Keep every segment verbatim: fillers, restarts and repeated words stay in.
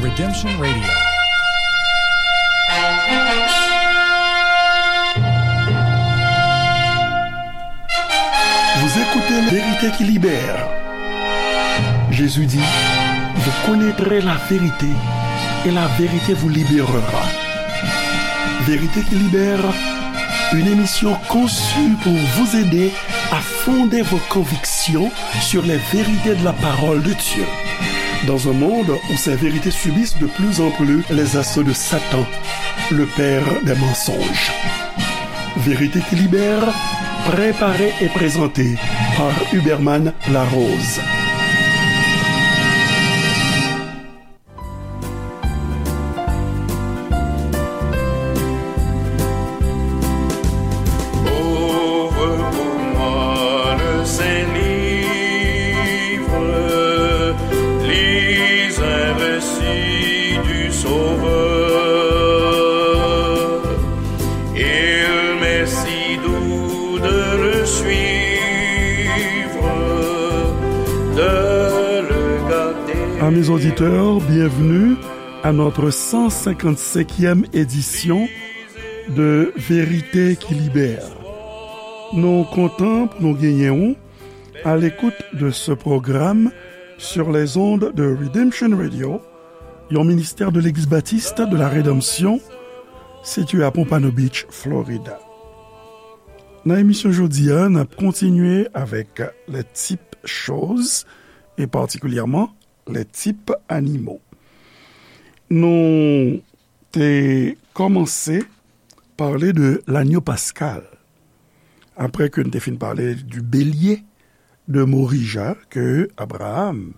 Redemption Radio. Vous écoutez La Vérité qui libère. Jésus dit, vous connaîtrez la vérité et la vérité vous libérera. Vérité qui libère, une émission conçue pour vous aider à fonder vos convictions sur les vérités de la parole de Dieu. Dans un monde où ces vérités subissent de plus en plus les assauts de Satan, le père des mensonges. Vérité qui libère, préparée et présentée par Huberman Larose. Ouvre pour moi le saint livre, lis un récit du Sauveur. Il m'est si doux de le suivre, de le garder. Amis auditeurs, bienvenue à notre cent cinquante-cinquième édition de Vérité qui Libère. Nou kontan pou nou genyen w à l'écoute de ce programme sur les ondes de Redemption Radio, yon ministère de l'Église baptiste de la Rédemption, situé à Pompano Beach, Florida. Nan emisyon jodi a, n ap kontinye avèk les types choses, et particulièrement les types animaux. Nou te kòmanse pale de l'agneau pascal, apre ke n te fin pale du bélier de Morija ke Abraham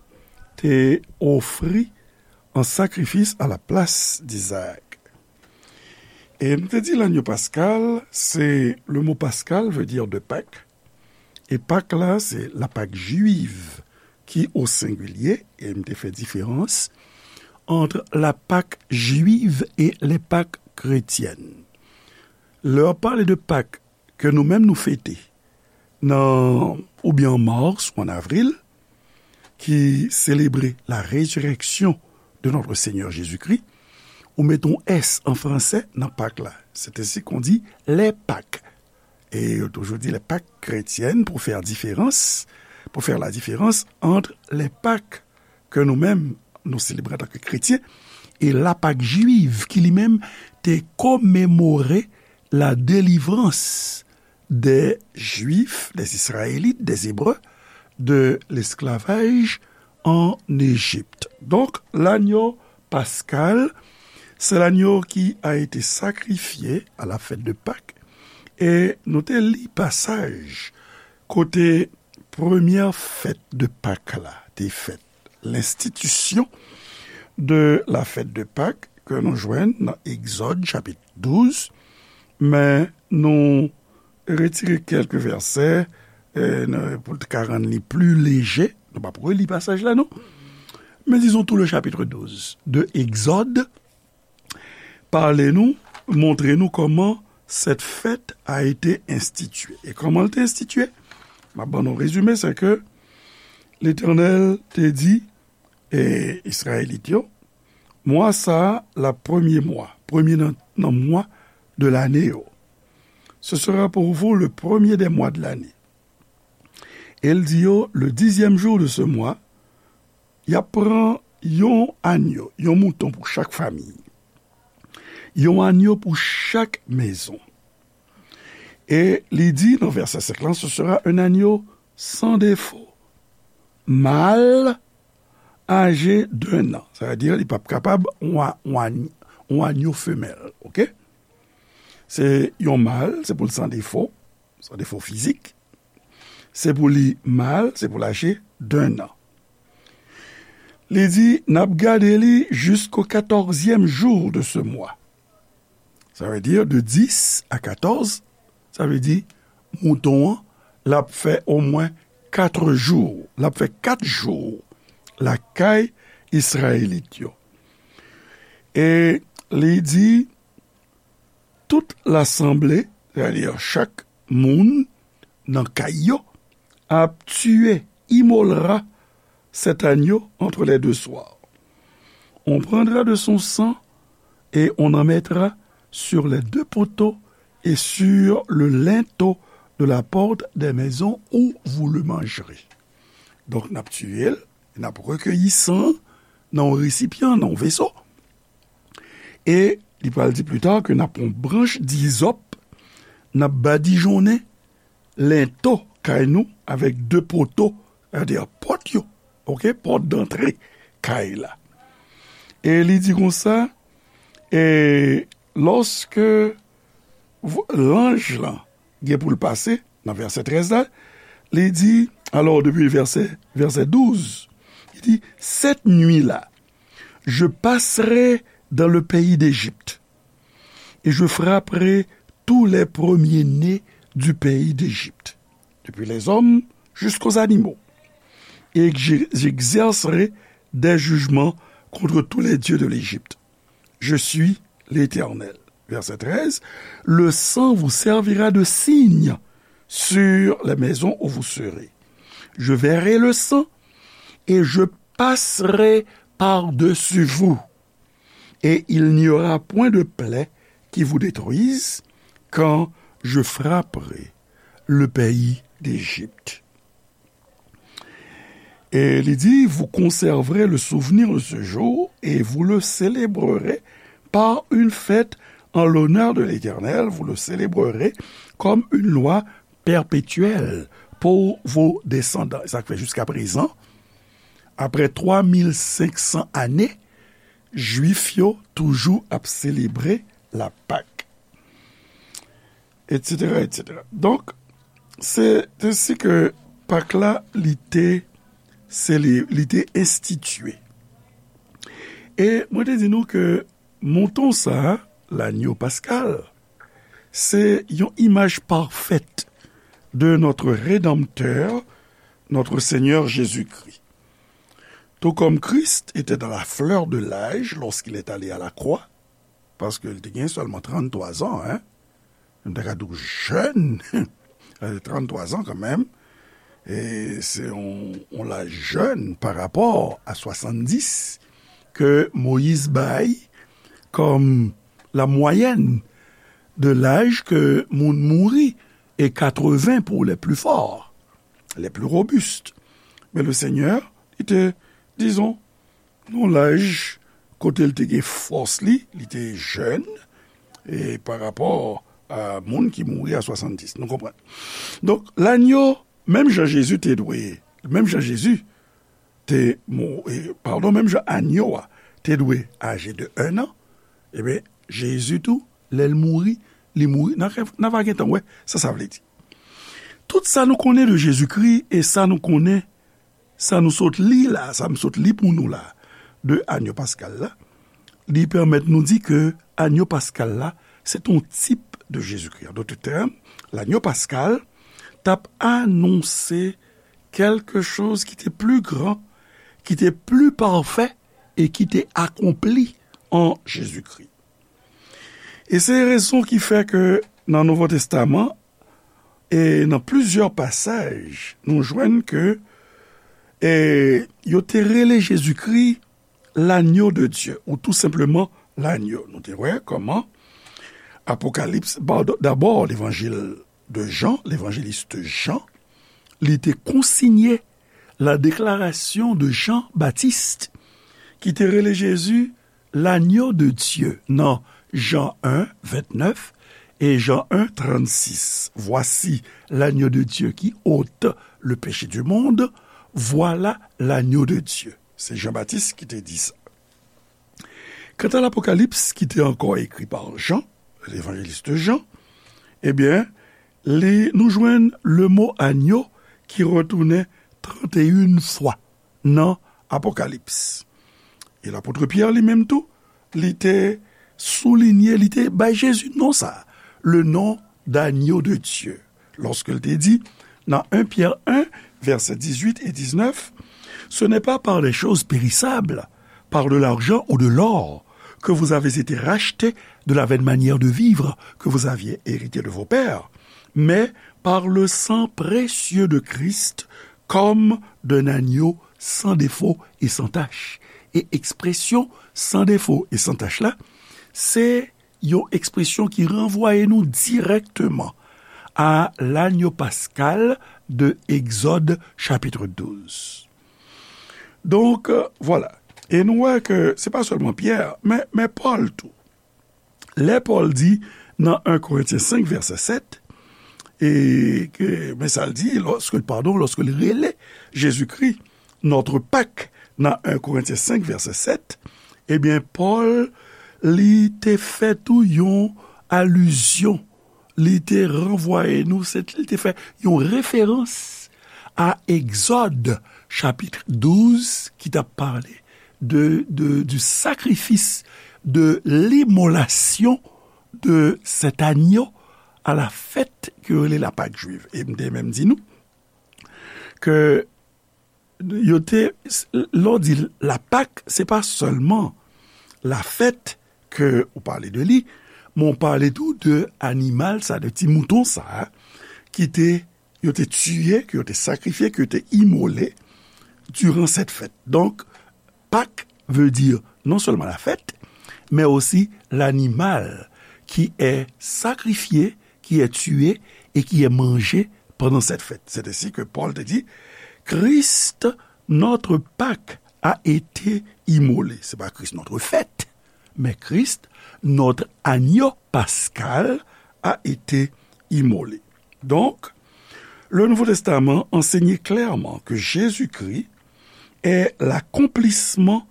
te ofri an sakrifis à la place d'Isaac. E m te di l'agneau pascal, se, le mot pascal veut dire de Pâques, e Pak la, se la Pâque juive ki o sengilye, e m te fè diferans entre la Pâque juive et les Pâques chrétiennes. Lè w ap pale de Pak ke nou menm nou fete nan, oubyen an mas ou an avril, ki selebre la résurrection de notre Seigneur Jésus-Christ, ou mete yon S an fransè nan Pak la. C'est ainsi qu'on dit les Pâques. E yo toujou di les Pâques chrétiennes pou fè diferans, pou fè la différence entre les Pâques ke nou menm nou selebre antanke kretyen e la Pâque juive ki li menm te komemore la délivrance des Juifs, des Israélites, des Hébreux de l'esclavage en Égypte. Donk, l'agneau pascal, c'est l'agneau qui a été sacrifié à la fête de Pâques. E nou te li pasaj kote premyè fèt de Pak la te fèt, l'institution de la fête de Pâques, ke nou jwenn nan Egzòd chapit douz, men nou retire kèlke vèsè, e, n-, pou l ka rann li pli leje. Nou p ap reli pasaj la, non. Men disons tout le chapitre douze de Egzòd, pale nou, montre nou kòman cette fête a été instituée. E kòman l te enstitye? M ap ban nou rezime, se ke Letènèl te di, e, Izrayelit yo, mwa sa a, l ap premye mwa, premye nan, nan mwa de lane yo. Ce sera pour vous le premier des mois de l'année. E l di yo, le dixième jour de ce mois, y ap pran yon anyo, yon mouton pou chak fanmi, yon anyo pou chak mezon. E li di nan vèsè senk lan, ce sera un agneau sans défaut, mâle âgé d'un an. Sa vle di, li p ap kapab yon a-, yon a-, yon anyo femèl, oke? Se yon mal, se pou l san defo, san defo fizik. Se pou li mal, se pou l aje d'un an. Li di, n ap gade li jusqu'au quatorzième jour de ce mois. Sa vle di de dis a katòz, sa vle di mouton an, l ap fè omwen kat jou, l ap fè kat jou lakay Izrayelit yo. E li di, tout lasanble, sètadi chak moun nan kay yo, ap tiye, imolera cet agneau entre les deux soirs. On prendra de son sang et on en mettra sur les deux poteaux et sur le linteau de la porte des maisons où vous le mangerez. Donk, n ap tiye l, n ap rekeyi san nan yon resipyan, nan yon veso. E li pral di pli ta ke n ap pran branch dizòp, n ap badijonnen lento kay nou avèk de poto, sètadi pòt yo, oke, pòt dantre kay la. E li di konsa, e lòske vo-, lanj lan gen pou l pase, nan vèsè trèz la, li di, alò, depi vèsè, vèsè douz, li di, cette nuit-là, je passerai dans le pays d'Égypte, et je frapperai tous les premiers-nés du pays d'Égypte, depuis les hommes jusqu'aux animaux, et j'e-, j'exercerai des jugements contre tous les dieux de l'Égypte. Je suis l'Éternel. Verset treize, le sang vous servira de signe sur les maisons où vous serez. Je verrai le sang et je passerai par-dessus vous, et il n'y aura point de plaie qui vous détruise quand je frapperai le pays d'Égypte. Et il dit, vous conserverez le souvenir de ce jour et vous le célébrerez par une fête en l'honneur de l'Éternel, vous le célébrerez comme une loi perpétuelle pour vos descendants. Sa k fè jiska prezan, apre twa mil senk san ane, Jwif yo toujou ap selebre la Pak, etsetera, etsetera. Donk, se te si ke Pak la, li te sele-, li te enstitye. E mwen te di nou ke mouton sa, lanyo paskal, se yon imaj pafèt de notre Rédempteur, notre Seigneur Jésus-Christ. Tout comme Christ était dans la fleur de l'âge lorsqu'il est allé à la croix, paske li te gen sèlman tranntwa zan, en, nou ta ka di w jèn, tranntwa zan kanmenm, e se yon, yon laj jèn pa rapò a swasanndis ke Moyiz bay kòm la mwayèn de laj ke moun mouri, e katreven pour les plus forts, les plus robustes. Men le Senyè, li te, dizon, nan laj kote l te gen fòs li, li te jèn, e pa rapò a moun ki mouri a swasanndis. Nou konprann? Donk, lanyo, menm jan Jezi te dwe, menm jan Jezi te mou-, e, padon, menm jan anyo a te dwe aje de en an, ebyen, Jezi tou, lè l mouri, li mouri, n a, n a va gentan wè sa sa vle di. Tout sa nou konnen de Jezikri e sa nou konnen, sa nou sot li la, sa m sot li pou nou la, de anyo paskal la, li pèmèt nou di ke anyo paskal la, se t on tip de Jezikri. An dòt tèm, lanyo paskal t ap anonse kèlke choz ki te pli gran, ki te pli pafè e ki te akonpli an Jezikri. E se rezon ki fè ke nan Nouvo Testaman, e nan plizyè pasaj, nou jwenn ke, e, yo te rele Jezikri lanyo de Dye, ou tou senpleman lanyo. Nou te wè kòman Apokalips, ba-, dabò, levanjil de Jan, levanjelis Jan, li te konsinye la déclaration de Jean-Baptiste, ki te rele Jezi lanyo de Dye nan Jan en, ventnèf e Jan en, trannsis. Voici l'agneau de Dieu qui ôte le péché du monde. Voilà l'agneau de Dieu. Se Jan Batis ki te di sa. Kanta Lapokalips, ki te ankò ekri pa Jan, levanjelis Jan, ebyen, li, nou jwenn le mo anyo ki retounen tranteyen fwa nan Apokalips. E lapot Pyè li menm tou, li te soulinye, li te bay Jezi non sa, le nom d'agneau de Dieu. Lòske l te di, nan en Pyè en, vèsè dizuit e diznèf, ce n'est pas par des choses périssables, par de l'argent ou de l'or, que vous avez été rachetés de la vaine manière de vivre que vous aviez héritée de vos pères, mais par le sang précieux de Christ, comme d'un agneau sans défaut et sans tache. E ekspresyon san defo e san tach la, se yon ekspresyon ki ranvwaye nou dirèkteman a lanyo paskal de Egzòd chapit douz. Donk, vwala. E nou wè ke se pa sèlman Pyè, men, men Pòl tou. Lè Pòl di nan en Korentyen senk vèsè sèt, e ke, men sa l di, lòske, padon, lòske l rele Jezikri notre Pâque nan en Korentyen senk vèsè sèt, ebyen, Pòl, li te fè tou yon alizyon, li te ranvwaye nou, se, li te fè yon referans a Egzòd chapit douz ki t ap pale de, de, du sacrifice, de l'immolation de cet agneau à la fête ke yo rele la Pâque juive. E m te menm di nou ke yo te, lè w di la Pâque, se pa sèlman la fèt ke ou pale de li, men w pale tou de animal sa, de ti mouton sa, ki te, yo te tiye, ke yo te sakrifye, ke yo te imole diran sèt fèt. Donk, Pâques veut dire non seulement la fête, mais aussi l'animal qui est sacrifié, qui est tué et qui est mangé pendant cette fête. C'est ainsi que Paul te dit, Christ, notre Pâque, a été immolé. C'est pas Christ notre fête, mais Christ, notre agneau pascal, a été immolé. Donc, le Nouveau Testament enseignait clairement que Jésus-Christ est l'accomplissement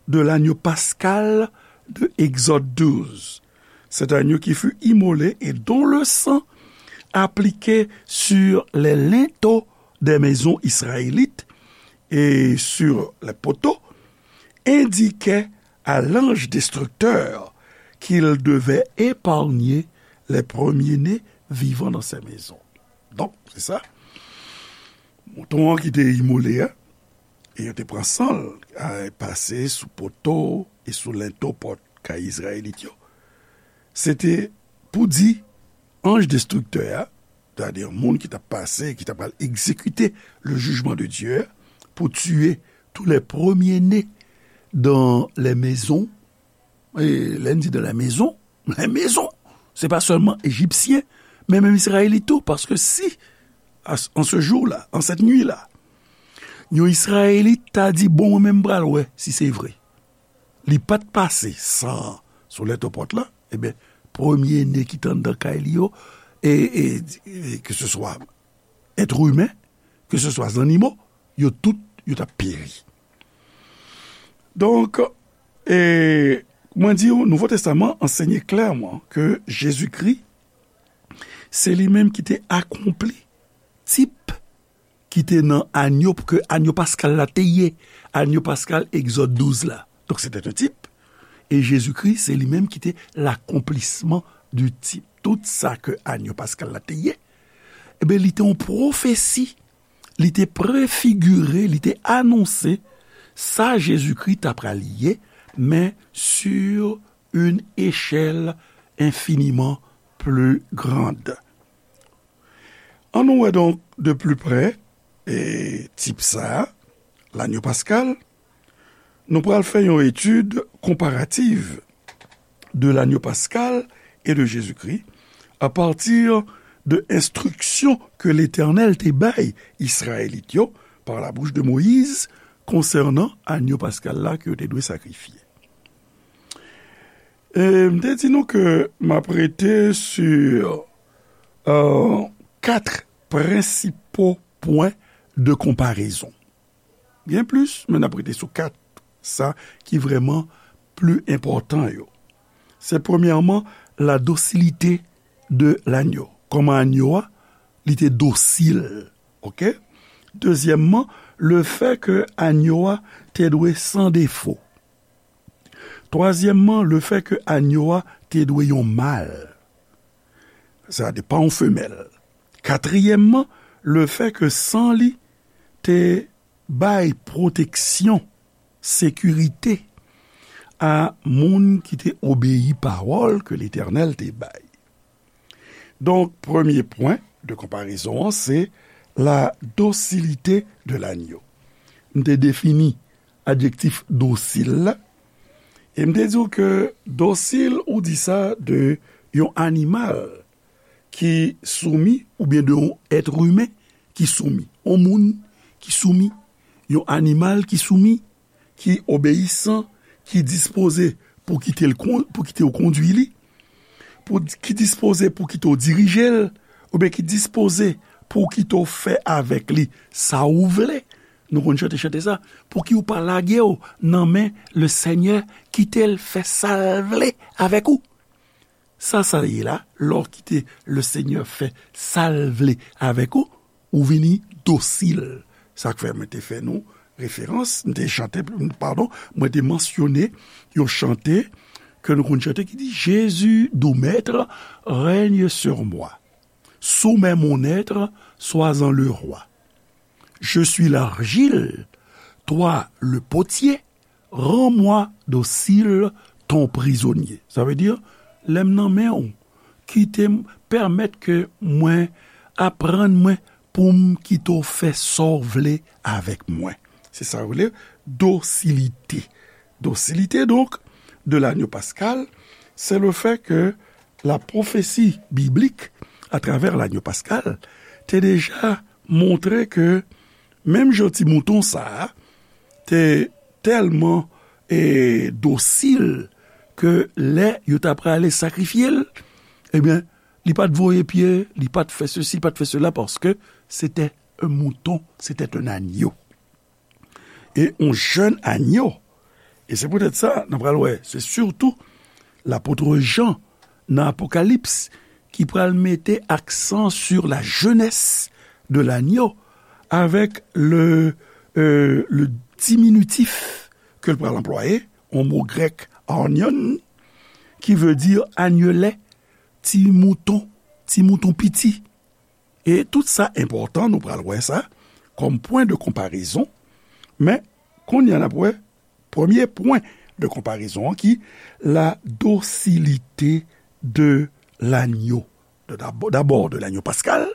de l'agneau pascal de Exode douze, cet agneau qui fut immolé et dont le sang appliqué sur les linteaux des maisons israélites et sur les poteaux indiquait à l'ange destructeur qu'il devait épargner les premiers-nés vivant dans ces maisons. Donk, se sa. Mouton an ki te imole a, e yo te pran san l, a, pase sou poto e sou lento pòt kay Izrayelit yo. Se te pou di anj destriktè a, sètadi moun ki t ap pase, ki t ap al egzekite le jijman de Dye a, pou tiye tou lè premye ne dan lè mezon. E lè n di dan lè mezon, lè mezon, se pa sèlman Ejipsyen, men menm Izrayelit tou, paske si, à ce, en ce jour-là, en cette nuit-là, yon Izrayelit ta di, bon, mwen menm m pral wè si se vre. Li pa t pase san an sou lento pòt la, ebyen, premye ne ki t anndan kay li yo, e, e, e, ke se swa èt imen, ke se swa zannimo, yo tout, yo t ap peri. Donk, e, mwen di w, Nouvo Testaman ansenye klèman ke Jezikri, se li menm ki te akonpli tip ki te nan anyo, ke anyo paskal la te ye, anyo paskal Egzòd douz la. Donk, se te yon tip. E Jezikri, se li menm ki te l'accomplissement du type. Tout sa ke anyo paskal la te ye, ebyen, li te yon pwofesi, li te prefigire, li te anonse sa Jezikri ta pral ye, men sur une échelle infiniment plus grande. Ann nou wè donk de plus près, e, tip sa a, lanyo paskal. Nou pral fè yon etid konparativ de lanyo paskal e de Jezikri a pati de enstriksyon ke Letènèl te bay Izrayelit yo par la bouche de Moïse konsènan anyo paskal la ke yo te dwe sakrifye. E m te di nou ke m ap rete sur, euh, quatre principaux points de comparaison. Gen plis, men n ap rete sou kat sa ki vrèman pli enpòtan yo. Se premyèman, la docilité de l'agneau. Kòman anyo a, li te dosil, oke? Dezyèmman, le fait que anyo a te dwe san defo. Twazyèmman, le fait que anyo a te dwe yon mal. Sa te pa yon femèl. Katriyèmman, le fait que san li te bay pwoteksyon, sekirite a moun ki te obeyi pawòl ke Letènèl te bay. Donk, premye pwen de konparezon an, se la docilité de l'agneau. M te defini adjektif dosil la. E m te di w ke dosil, ou di sa de yon animal ki soumi, oubyen de yon èt imen ki soumi. Yon moun ki soumi, yon animal ki soumi, ki obeyisan, ki dispoze pou kite l kon-, pou kite w kondui li, pou, ki dispoze pou kite w dirije l, oubyen ki dispoze pou kite w fè avèk li sa ou vle. Nou konn chante chante sa, pou ki w pa lage w nan men Lesenyè, kite l fè sa l vle avèk ou. Sa sa ye la, lè w kite Lesenyè fè sa l vle avèk ou, ou vini dosil. Sa k fè mwen te fè nou referans, m te chante, padon, mwen te mansyone yon chante ke nou konn chante ki di, Jésus, doux maître, règne sur moi. Soumets mon être, sois-en le roi. Je suis l'argile, toi le potier, rends-moi docile ton prisonnier. Sa vle di, lè m nan men w, kite m, pèmèt ke mwen, aprann mwen pou m kite w fè sa w vle avèk mwen. Se sa yo rele dosilite. Dosilite, donc, de l'agneau pascal, c'est le fait que la prophétie biblique, à travers l'agneau pascal, te deja montre ke menm jan ti mouton sa a te tèlman, e, dosil ke lè yo ta prale sakrifye l, ebyen, li pa t voye pye, li pa t fè sesi, li pa t fè sela, paske se te yon mouton, se te yon anyo. E yon jèn anyo. E se poutèt sa, nou pral wè, se sitou lapot Jan nan Apokalips ki pral mete aksan sur la jeunesse de l'agneau avec le, euh, le diminutif ke l pral anplwaye, yon mo grèk, arnion, ki vle di anyelè, ti mouton, ti mouton piti. E tout sa enpòtan, nou pral wè sa kòm pwen de konparezon. Men, kounye a n ap wè premye pwen de konparezon an ki la dosilite de lanyo. De dabò, dabò de lanyo paskal,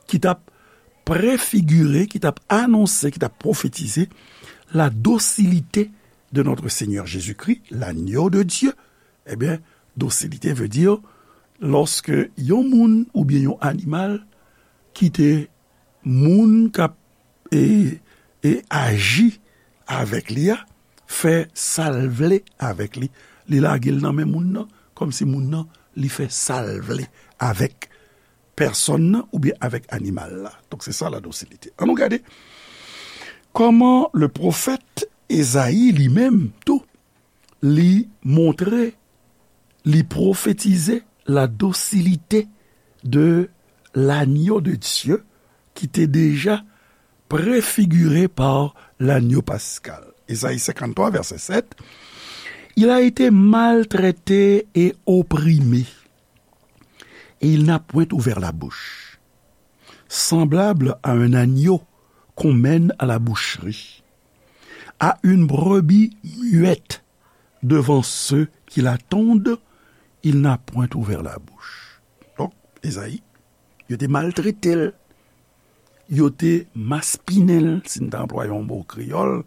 ki t ap prefigire, ki t ap anonse, ki t ap pwofetize la dosilite de notre Seigneur Jésus-Christ, l'agneau de Dieu. Ebyen, dosilite vle di lòske yon moun oubyen yon animal kite moun k ap, e, e aji avèk li a fè sa l vle avèk li. Li lage l nan men moun nan, kòmsi moun nan, li fè sa l vle avèk pèsòn nan oubyen avèk animal la. Donk, se sa la dosilite. Ann nou gade kòman le pwofèt Ezayi li menm tou, li montre, li pwofetize la dosilite de l'agneau de Dieu ki te deja prefigire pa lanyo paskal. Ezayi senkanntwa, vèsè sèt, Il a été maltraité et opprimé, et il n'a point ouvert la bouche. Semblable à un agneau qu'on mène à la boucherie, à une brebis muette devant ceux qui l'attendent, il n'a point ouvert la bouche. Donk, Ezayi, yo te maltrete l, yo te maspinen l, si n ta anplwaye yon mo kreyòl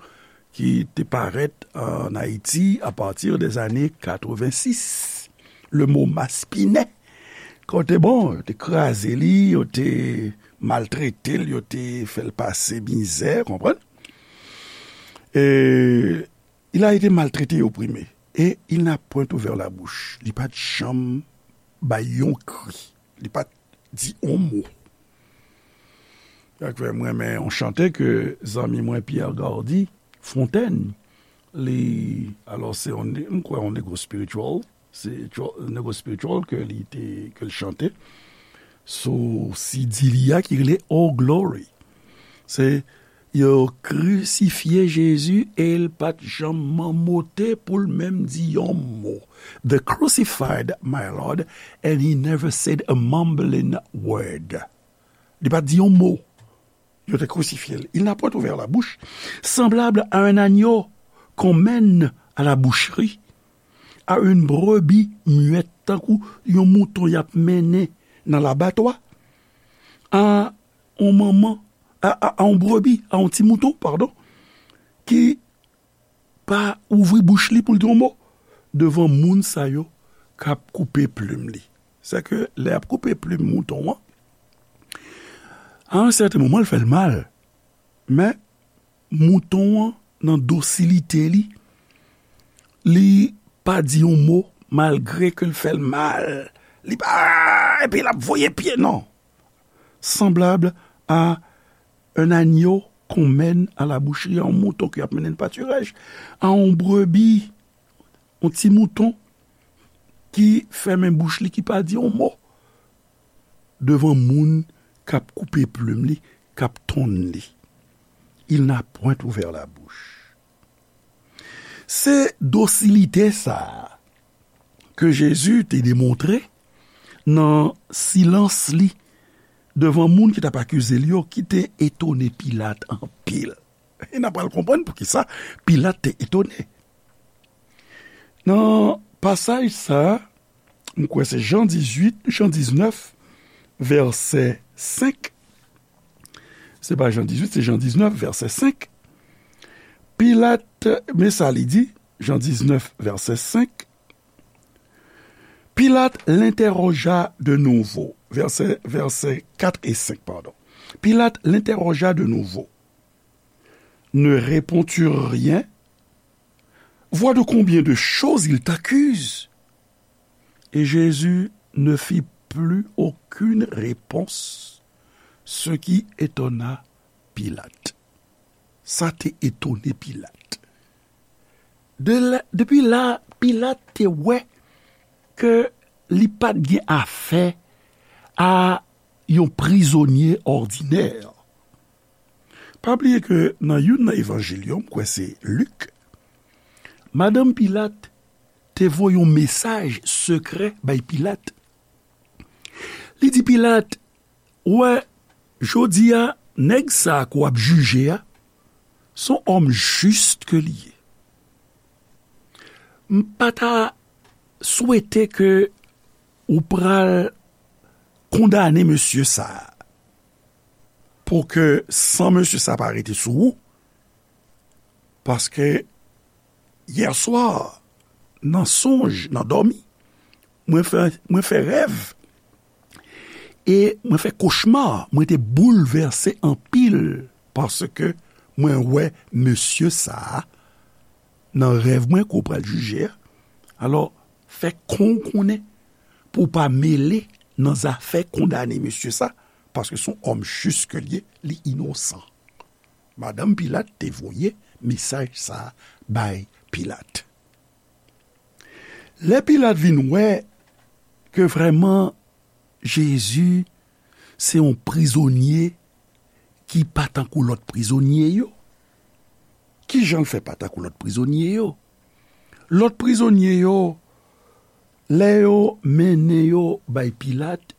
ki te parèt ann Ayiti apati dèzane katrevensis. Le mo maspinen, kote, bon, yo te kraze li, yo te maltrete l, yo te fè l pase mizè, konprann? E, il a été maltraité et opprimé, et il n'a point ouvert la bouche. Li pa t janm bay yon kri. Li pa t di yon mo. Sa k fè m renmen yon chante ke zanmi mwen Pierre Gardy Fontaine, li, alò, se yon, m kwè, yon negro spiritual, se tro-, negro spiritual ke li te, ke l chante sou C D li a ki rele Oh Glory. Se, yo krisifye Jezi e l pa t janm manmote pou l menm di yon mo. They crucified my Lord, and he never said a mumbling word. Li pa t di yon mo. Yo te krisifye l. Il n'a point ouvert la bouche. Semblable à un agneau qu'on mène à la boucherie, à une brebis muette, tankou yon mouton y ap mennen nan labatwa, a yon manman, a, a, a yon brebi, a yon ti mouton, padon, ki pa ouvri bouch li pou l di yon mo devan moun sa yo k ap koupe plim li. Sèke lè y ap koupe plim mouton an, a yon sèten moman, l fè l mal. Men, mouton an, nan dosilite li, li pa di yon mo, malgre ke l fè l mal. Li pa, epi l ap voye pye, non. Semblable à un agneau qu'on mène à la boucherie, yon mouton ke y ap mennen nan patiraj, a yon brebi, yon ti mouton ki fèmen bouch li, ki pa di yon mo devan moun k ap koupe plim li, k ap tonn li. Il n'a point ouvert la bouche. Se dosilite sa a ke Jezi te demontre nan silans li devan moun ki t ap akize l yo, ki te etone Pilat anpil. E n a pral konprann poukisa Pilat te etone. Nan pasaj sa a, m kwè se Jan dizuit, Jan diznèf, vèsè senk. Se pa Jan dizuit, se Jan diznèf, vèsè senk. Pilat, men sa li di, Jan diznèf, vèsè senk. Pilate l'interrogea de nouveau. Vèsè, vèsè kat e senk, padon. Pilate l'interrogea de nouveau. Ne réponds-tu rien? Vois de combien de choses il t'accuse. Et Jésus ne fit plus aucune réponse, ce qui étonna Pilate. Sa te etone Pilat. De la, depi la, Pilat te wè ke li pa t gen afè a yon prizonye òdinè. Pa bliye ke nan youn nan evanjil yo, m kwè se Lik, madanm Pilat te voye yon mesaj sekrè bay Pilat. Li di Pilat, "Ou wè, jodi a, nèg sa a ke w ap jije a, se yon òm jis ke li ye. M pa ta swete ke ou pral kondane mesye sa a, pou ke san mesye sa a pa rete sou ou, paske yèswa, nan sonj, nan dòmi, mwen fè, mwen fè rèv, e mwen fè kochma, mwen te boulvèse anpil, paske mwen wè mesye sa a, nan rèv mwen ke w pral jije a. Alò, fè kon w konnen pou w pa mele nan zafè kondane mesye sa, paske se yon òm jis ke l ye, li inosan." Madanm Pilat te voye mesaj sa a bay Pilat. Lè Pilat vin wè ke vrèman Jezi se yon prizonye ki pa tankou lòt prizonye yo, kijan l fè pa tankou lòt prizonye yo? Lòt prizonye yo, lè yo mennen yo bay Pilat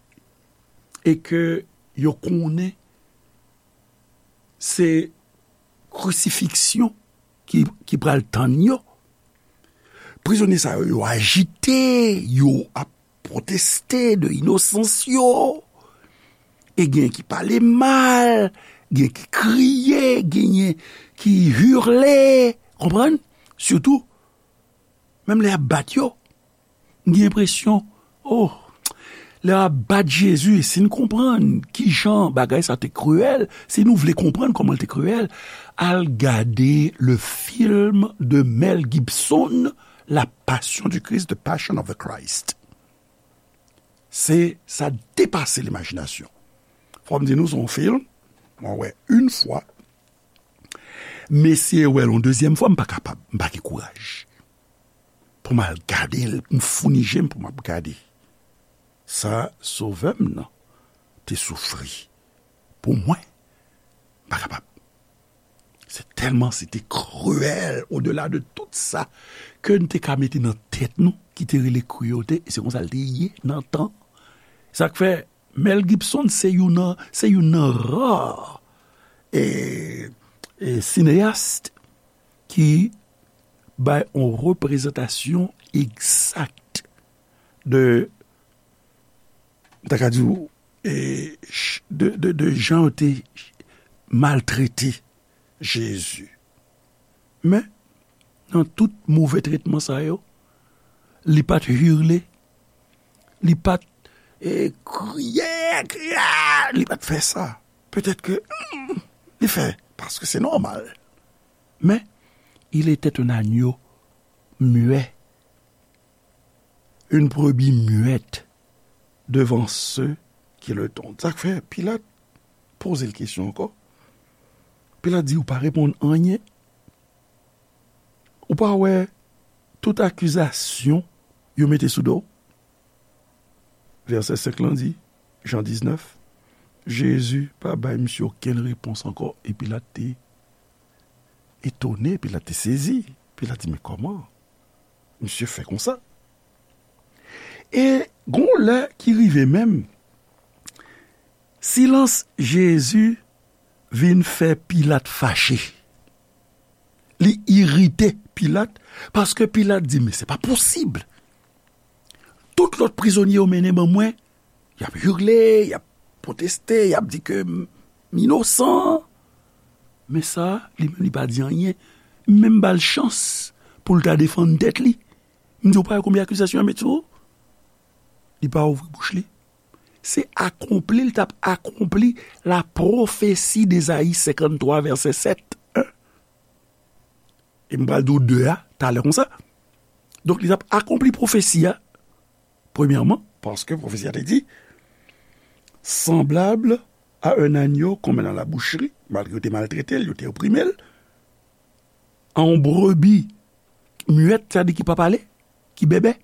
e ke yo konnen se krisifiksyon ki, ki pral tann yo, prizonye sa yo, yo ajite, yo ap pwoteste de inosans yo. E gen ki pale mal, gen ki kriye, genyen ki hurle, konprann? Sitou, menm lè y ap bat yo, m gen enpresyon, oh, lè y ap bat Jezi, si n konprann kijan bagay sa te kriyèl, si nou vle konprann kòman l te kriyèl, al gade le film de Mel Gibson, La Passion du Christ, The Passion of the Christ. Se, sa depase limajinasyon. Fò m di nou, se yon fim, mwen wè yon fwa, m eseye wè l yon dezyèm fwa, m pa kapab, m pa gen kouraj pou m al gade l, m founi je m pou m ap gade sa Sovè m nan te soufri pou mwen. M pa kapab. Se tèlman se te kriyèl, odela de tout sa ke n te ka mete nan tèt nou, ki te rele kriyèlte, e se konsa l te ye nan tan. Sa k fè Mel Gibson se youn nan, se youn nan ra, e, e, sineyas ki bay yon reprezantasyon egzak de, m ta ka di w, e, ch-, de, de, de jan yo te maltrete Jezi. Men, nan tout move tretman sa yo, li pa t hirle, li pa t, eh, kriye, kriye, li pa t fè sa. Petèt ke, hmm, li fè, paske se nòmal. Men, il était un agneau muet, une brebis muette devant ceux qui le tondent. Sa k fè Pilat poze l kesyon ankò. Pilat di, ou pa reponn anyen. Ou pa wè tout akizasyon yo mete sou do w? Vèsè senk lan di, Jan diznèf, Jezi pa bay misye okenn repons ankò. E Pilat te etone, Pilat te sezi. Pilat di, men kòman misye fè konsa? E gon lè ki rive menm, silans Jezi vin fè Pilat fache. Li irite Pilat, paske Pilat di, men se pa posib. Tout lòt prizonye yo mennen ban mwen, y ap hirle, y ap pwoteste, y ap di ke m, m inosan. Men sa, li menm li pa di anyen. M menm ba l chans pou l ta defann tèt li. M di, ou pa wè konbyen akizasyon y ap met sou ou? Li pa ouvri bouch li. Se akonpli, li t ap akonpli la prophétie d'Ésaïe cinquante-trois, verset sept. E m pral di w de a talè konsa. Donk, li t ap akonpli pwofesi a, premyèman, paske pwofesi a te di, semblable à un agneau qu'on met dans la boucherie, malgre yo te maltrete l, yo te oprime l, a yon brebi muet, sa di ki pa pale, ki bèbè,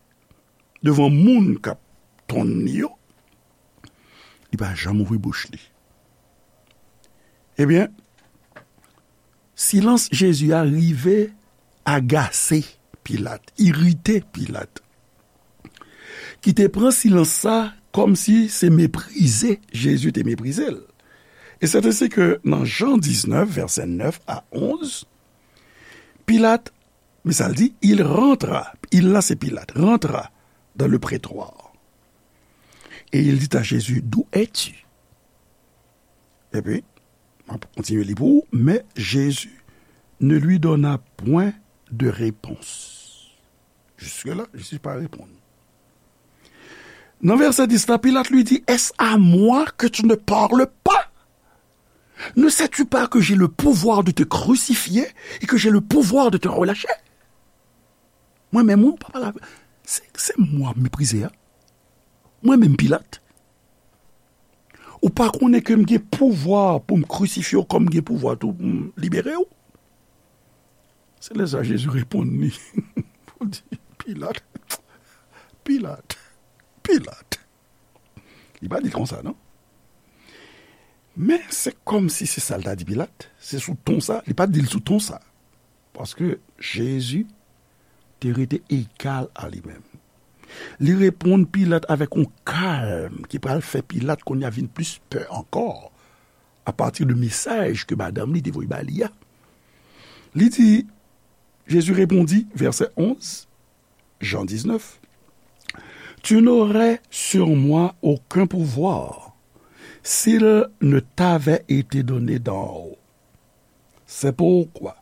devan moun k ap tonn li yo, li pa janm ouvri bouch li. Ebyen, silans Jezi a rive agase Pilat, irite Pilat, ki te pran silans sa kòmsi se meprize Jezi te meprize l. E sèt ensi ke nan Jan diznèf, vèsè nèf a onz, Pilat, men sa l di, il rentra, il la se Pilat, rentra dans le prétoire. Et il dit à Jésus, d'où es-tu? Epi, m ap kontinye li pou ou, mais Jésus ne lui donna point de réponse. Jusque-là, Jésus pa reponn. Nan vèsè dis la, Pilat lui dit, est-ce à moi que tu ne parles pas? Ne sais-tu pas que j'ai le pouvoir de te crucifier et que j'ai le pouvoir de te relâcher? Mwen menm, ou pa pale avè, se, se mwen w ap meprize a. Mwen menm Pilat. Ou pa konnen ke m gen pouvwa pou m krisifye w, kòm m gen pouvwa tou pou m libere w? Se lè sa Jezi reponn li. Pou di, Pilat, Pilat, Pilat. Li pa di l konsa, non. Men se kòmsi se sa l ta di Pilat. Se sou ton sa, li pa t di l sou ton sa. Paske Jezi te rete egal a li menm. Li reponn Pilat avèk yon kalm ki pral fè Pilat kounye a vin plis pè ankò, apati de mesaj ke madanm li te voye ba li a. Li di, Jésus répondit, verset onze, Jean dix-neuf, tu n'aurais sur moi aucun pouvoir s'il ne t'avait été donné d'en haut. C'est pourquoi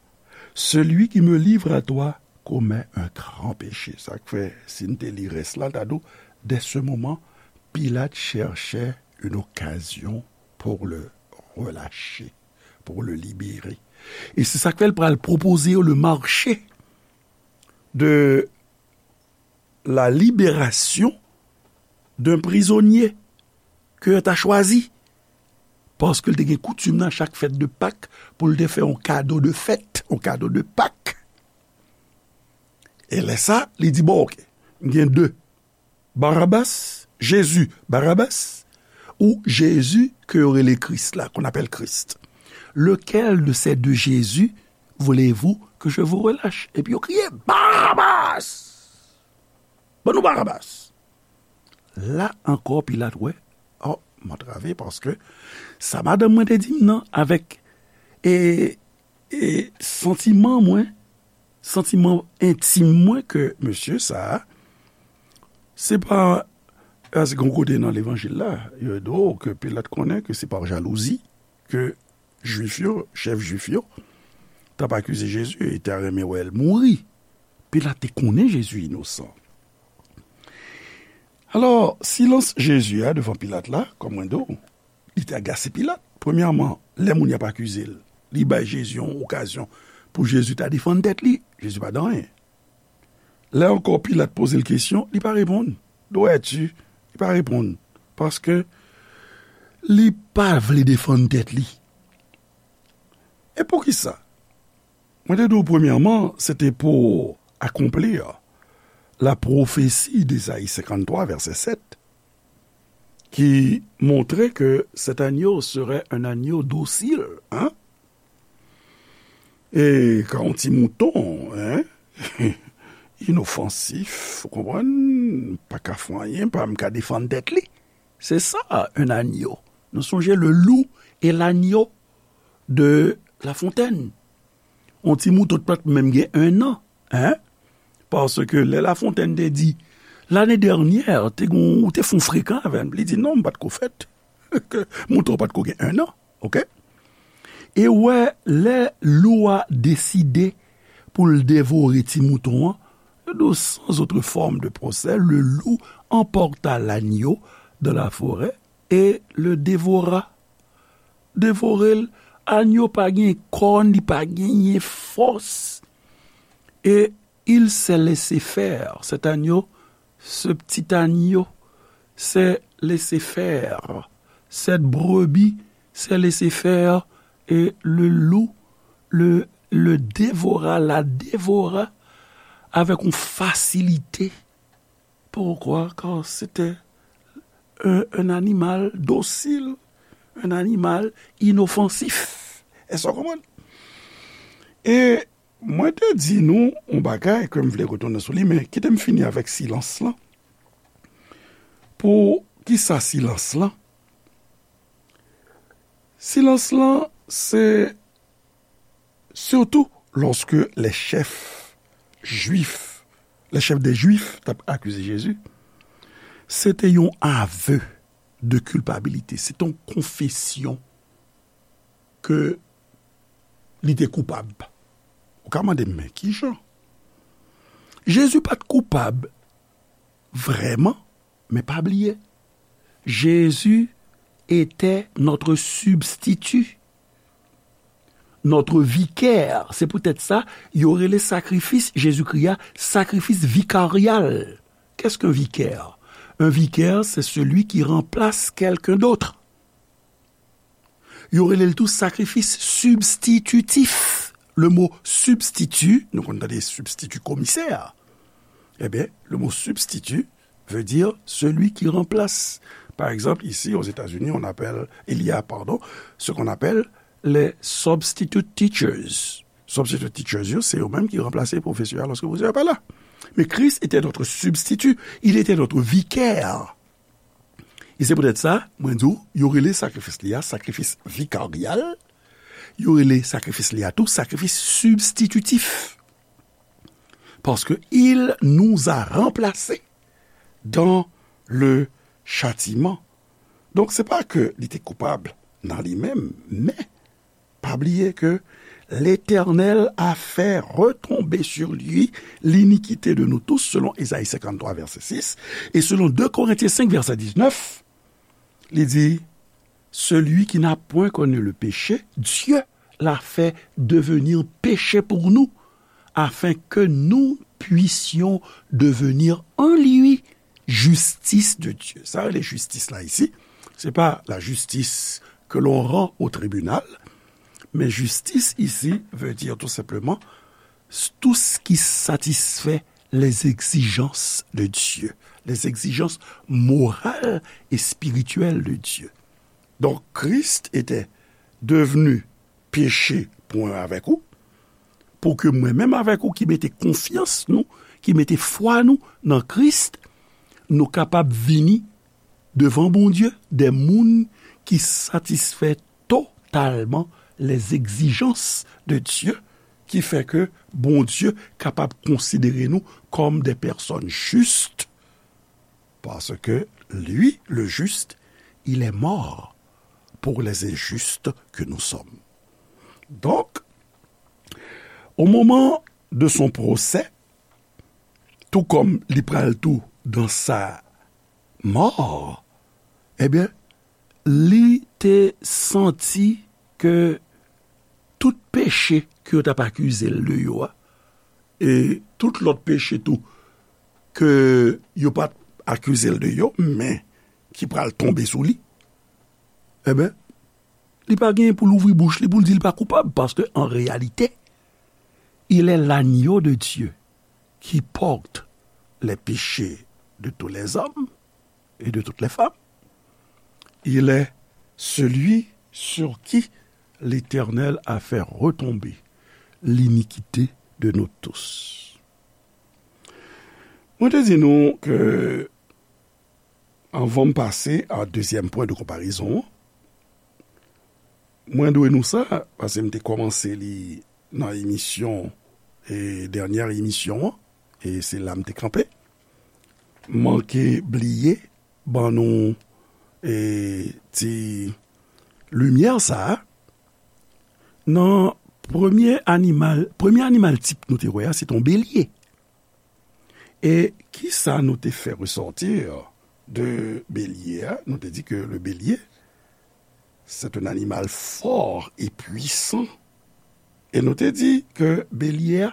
celui qui me livre à toi commet un grand péché. Sa k fè, si n te li rès la, l ta di w, dès ce moment, Pilate cherchait une occasion pour le relâcher, pour le libérer. E se sa k fè l pral pwopoze yo le marché de la libération d'un prisonnier ke yo ta chwazi. Paske l te gen koutim nan chak fèt de Pak pou l te fè yon kado de fèt, yon kado de Pak. E lè sa, li di, bon, oke, m gen de, Barabas, Jezi, Barabas, ou Jezi ke yo rele Kris la, qu'on appelle Christ. Lequel de ces deux Jésus voulez-vous que je vous relâche? Epi yo kriye, Barabas! Ban nou Barabas! La ankò, Pilat wè, oh, m antrave paske sa madanm mwen te di m nan avèk, e, e santiman mwen, santiman entim mwen ke mesye sa a, se pa, paske yon kote nan levanjil la, yo di w ke Pilat konnen ke se pa jalouzi ke Jwif yo, chèf Jwif yo, t ap akize Jezi e ta renmen wè l mouri. Pilat te konnen Jezi inosan. Alò, silans Jezi a devan Pilat la, kòm mwen di w, li te agase Pilat. Premyèman, lè moun y ap akize l, li bay Jezi yon okazyon pou Jezi ta defann tèt li. Jezi pa di anyen. Lè ankò Pilat poze l kesyon, li pa reponn. Dwèti, li pa reponn. Paske li pa vle defann tèt li. E poukisa? Mwen te di w premyèman, se te pou akonpli la pwofesi d'Ésaïe cinquante-trois, verset sept, ki montre que cet agneau serait un agneau docile, hein? E ka yon ti mouton, hein? Inofansif, ou konprann? Pa ka fè anyen, pa menm ka defann tèt li. Se sa, un agneau. Nou sonje le loup et l'agneau de La Fontaine. Yon ti mouton ki pa t menm gen un an, hein? Paske lè La Fontaine te di, lane dènyè, te gon, ou te fè yon frekan avè m. Li di, non, m pa t ko fèt. Mouton pa t ko gen un an, oke? E wè, lè lou a deside pou l devore ti mouton an, de sans autre forme de procès, le loup emporta l'agneau dans la forêt et le dévora. Devore l, agneau pa gen kòn, li pa genyen fòs. Et il s'est laissé faire. Cet agneau, ce petit agneau, s'est laissé faire. Cette brebis s'est laissé faire. Et le loup le, le dévora, la dévora avec une facilité. Pourquoi? Car c'était un, un animal docile, un animal inoffensif. Èske w konprann? E mwen te di nou yon bagay ke m vle retounen sou li, men kite m fini avèk silans lan. Pou ki sa silans lan? Silans lan, se sitou lòske lè chèf jwif, lè chèf dè jwif t ap akize Jezi, se te yon aveu de culpabilité, se te yon konfesyon ke li te koupab. Ou ka mande m, men kijan? Jezi pa t koupab vrèman, men pa bliye, Jésus était notre substitut, notre vicaire. Se poutèt sa, yo rele sakrifis Jezikri a sakrifis vikaryal. Qu'est-ce qu'un vicaire? Un vicaire, c'est celui qui remplace quelqu'un d'autre. Yo rele l tou sakrifis sibstititif. Le mot substitut, nou konn tande sibstiti komisè, ebyen, le mot substitut veut dire celui qui remplace. Par exemple, ici aux États-Unis, on appelle, il y a, pardon, ce qu'on appelle les substitute teachers. Substitute teachers, yo, se yo menm ki ranplase pwofesè a lòske pwofesè a pa la. Mais Christ était notre substitut, il était notre vicaire. E se poutèt sa, mwen di w, yo rele sakrifis li a sakrifis vikaryal, yo rele sakrifis li a tou sakrifis sibstititif. Paske il nous a remplacés dans le châtiment. Donk, se pa ke li te koupab nan li menm, men pa bliye ke Letènèl a fè retonbe sur lui l'iniquité de nous tous, selon Ésaïe cinquante-trois, verset six, et selon deux Corinthiens cinq, verset dix-neuf, li di, celui qui n'a point connu le péché, Dieu l'a fait devenir péché pour nous, afin que nous puissions devenir en lui justice de Dieu. Sa rele jistis la isi, se pa la justice que l'on rend au tribunal, mais justice ici veut dire tout simplement tout ce qui satisfait les exigences de Dieu, les exigences morales et spirituelles de Dieu. Donc, Christ était devenu péché pou mwen avèk ou, pou ke mwen menm avèk ou ki mete konfyans nou, ki mete fwa nou nan Kris, nou kapab vini devan Bondye, de moun ki satisfè totalman les exigences de Dieu, ki fè ke Bondye kapab konsidere nou kòm de pèsòn jis, parce que lui, le juste, il est mort pour les injustes que nous sommes. Donc, au moment de son procès, tou kòm li pral tou dans sa mò, ebyen, li te santi ke tout peche ke yo t ap akize l de yo a, e tout lòt peche tou ke yo pa t akize l de yo, men ki pral tonbe sou li, ebyen, li pa genyen pou l ouvri bouch li pou l di l pa koupab, paske an reyalite, il est l'agneau de Dieu qui porte les péchés de tous les hommes et de toutes les femmes. Il est celui sur qui l'Éternel a fait retomber l'iniquité de nous tous. Mwen te di nou ke, anvan m pase a dezyèm pwen de konparezon an, mwen dwe nou sa, paske m te kòmanse li nan emisyon, e dènyè emisyon an, e se la m te kanpe. Manke bliye ban nou, e ti limyè sa a, nan premye animal, premye animal tip nou te wè a, se t on belye. E kisa nou te fè resòti de belye a? Nou te di ke le bélier, c'est un animal fort et puissant. E nou te di ke belye a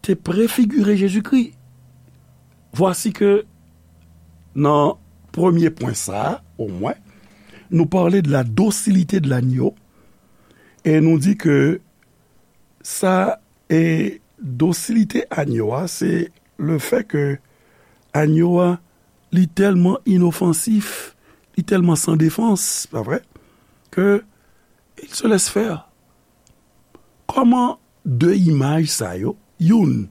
te prefigire Jezikri. Vwasi ke nan premye pwen sa a, omwen, nou pale de la docilité de l'agneau, e nou di ke sa, e dosilite agno a, se le fè ke agno a, li tèlman inofansif, li tèlman san defans, pa vre, ke il se laisse faire. Kòman de imaj sa yo, youn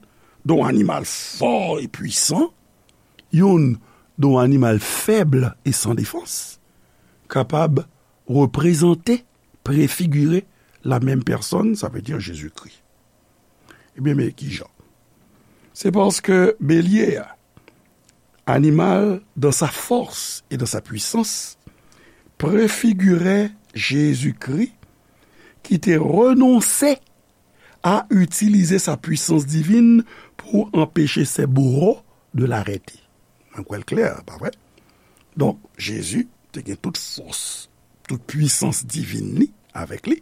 de yon animal fò e pwisan, youn de yon animal fèb e san defans, kapab reprezante, prefigire la menm pèsòn, sa vle di Jezikri. Ebyen, men kijan? Se paske belye a, animal dans sa force et dans sa puissance, prefigire Jezikri ki te renonse a itilize sa pwisans divin pou anpeche se bouro de l'arrêter. Mwen kwè l klè, pa vre? Donk, Jezi te gen tout fòs, tout pwisans divin li avèk li.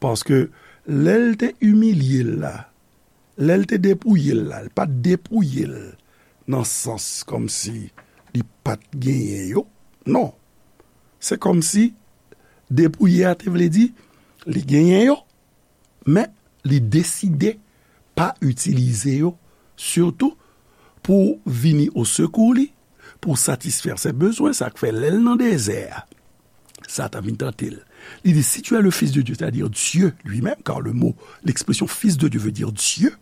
Paske lè l te imilye l la, lè l te depouye l la, l pa t depouye l nan sans kòmsi li pa t genyen yo. Non. Se kòmsi depouye a te vle di li genyen yo, men li deside pa itilize yo, sitou pou vini o sekou li, pou satisfè se bezwen, sa k fè lè l nan dezè a, Satan vin tante l. Li di, si tu es le Fils de Dieu, c'est-à-dire Dieu lui-même, car le mot, l'expression Fils de Dieu veut dire Dieu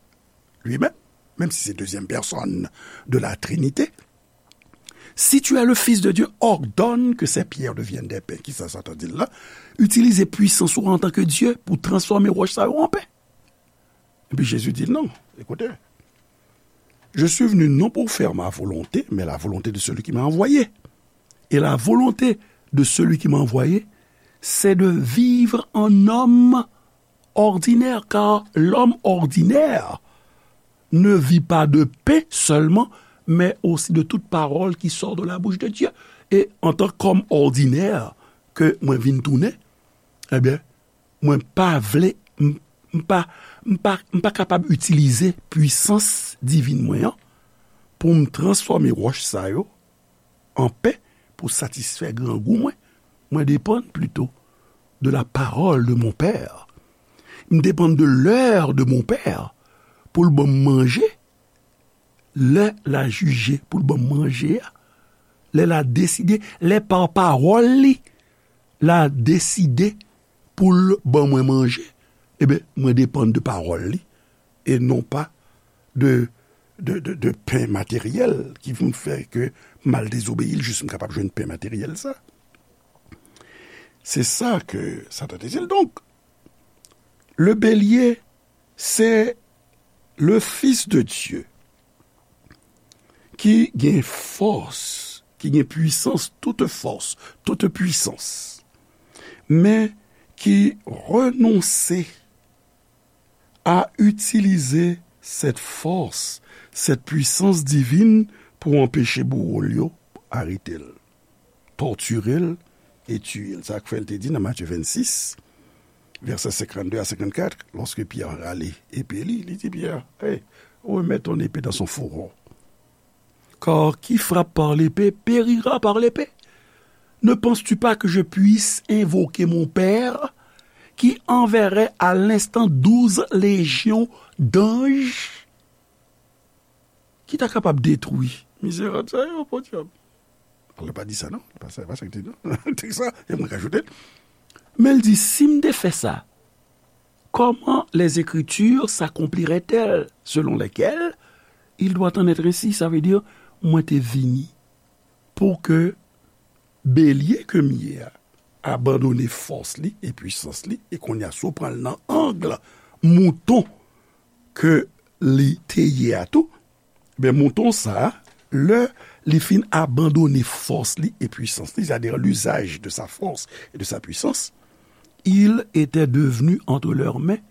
lui-même, même si c'est deuxième personne de la Trinité. Si tu es le Fils de Dieu, ordonne que ces pierres deviennent des pains. Kisa Satan di l la? Itilize pwisans ou antanke Dye pou transfòme wòch sa yo an pen. Epi Jezi di l, non, écoutez, je suis venu non pour faire ma volonté, mais la volonté de celui qui m'a envoyé. Et la volonté de celui qui m'a envoyé, c'est de vivre en homme ordinaire, car l'homme ordinaire ne vit pas de pain seulement, mais aussi de toute parole qui sort de la bouche de Dieu. Et en tant qu'homme ordinaire, ke mwen vin tounen, ebyen, mwen pa vle, m, m pa, m pa, m pa kapab itilize pwisans divin mwen an pou m transfòme wòch sa yo an pen pou satisfè grangou mwen. Mwen depann plito de la parole de mon Père. M depann de l'heure de mon Père pou l ban m manje. Lè l a jije pou l ban m manje a, lè l a deside, lè pa pawòl li, l a deside pou l ban mwen manje, ebyen, mwen depann de pawòl li, e non pa de, de, de, de pen materyèl ki vin fè ke m al dezobeyi l jis m kapab jwenn pen materyèl sa. Se sa ke Satan te di l. Donk, le bélier, se le Fils de Dieu ki gen fòs, ki gen pwisans, toute force, toute puissance, men ki renonse a itilize cette force, cette puissance divine pou anpeche bouwo l yo arete l, tòtire l e tiye l. Sa k fè l te di nan Matye vennsis, vèsè senkannde a senkannkat, lòske Pyè rale epe li, li di Pyè, hey, remets ton épée dans son fourreau. Car qui frappe par l'épée périra par l'épée. Ne penses-tu pas que je puisse invoquer mon Père, qui enverrait à l'instant douze légions d'anges, ki ta kapab detwi mizerab sa yo, podyab. Li pa di sa, non. Li pa sa, li pa sa ki te di, non. Tèks la, e mwen k ajoute l. Men l di, si m te fè sa, comment les Écritures s'accompliraient-elles, selon lesquelles il doit en être ainsi? Sa vle di, mwen te vini pou ke belye ke m ye a abandone fòs li e pwisans li, e kounye a, si w pran l nan ang mouton ke li te ye a tou, ben, mouton sa a, lè li fin abandone fòs li e pwisans li, c'est-à-dire l'usage de sa force et de sa puissance, il était devenu entre leurs mains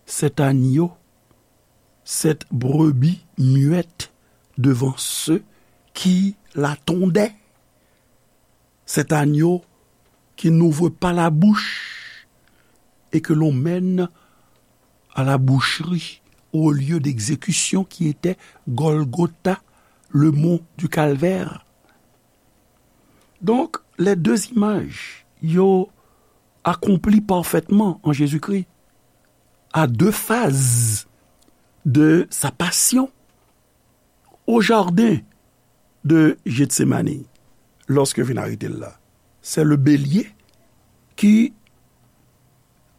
cet agneau, cette brebis muette devant ceux qui la tondaient, cet agneau qui n'ouvre pas la bouche et que l'on mène à la boucherie, au lieu d'exécution qui était Golgotha, le mont du Calvaire. Donc, les deux images, yo accompli parfaitement en Jésus-Christ, à deux phases de sa passion. Au jardin de Gethsemane, lorsque vin arete l la, c'est le bélier qui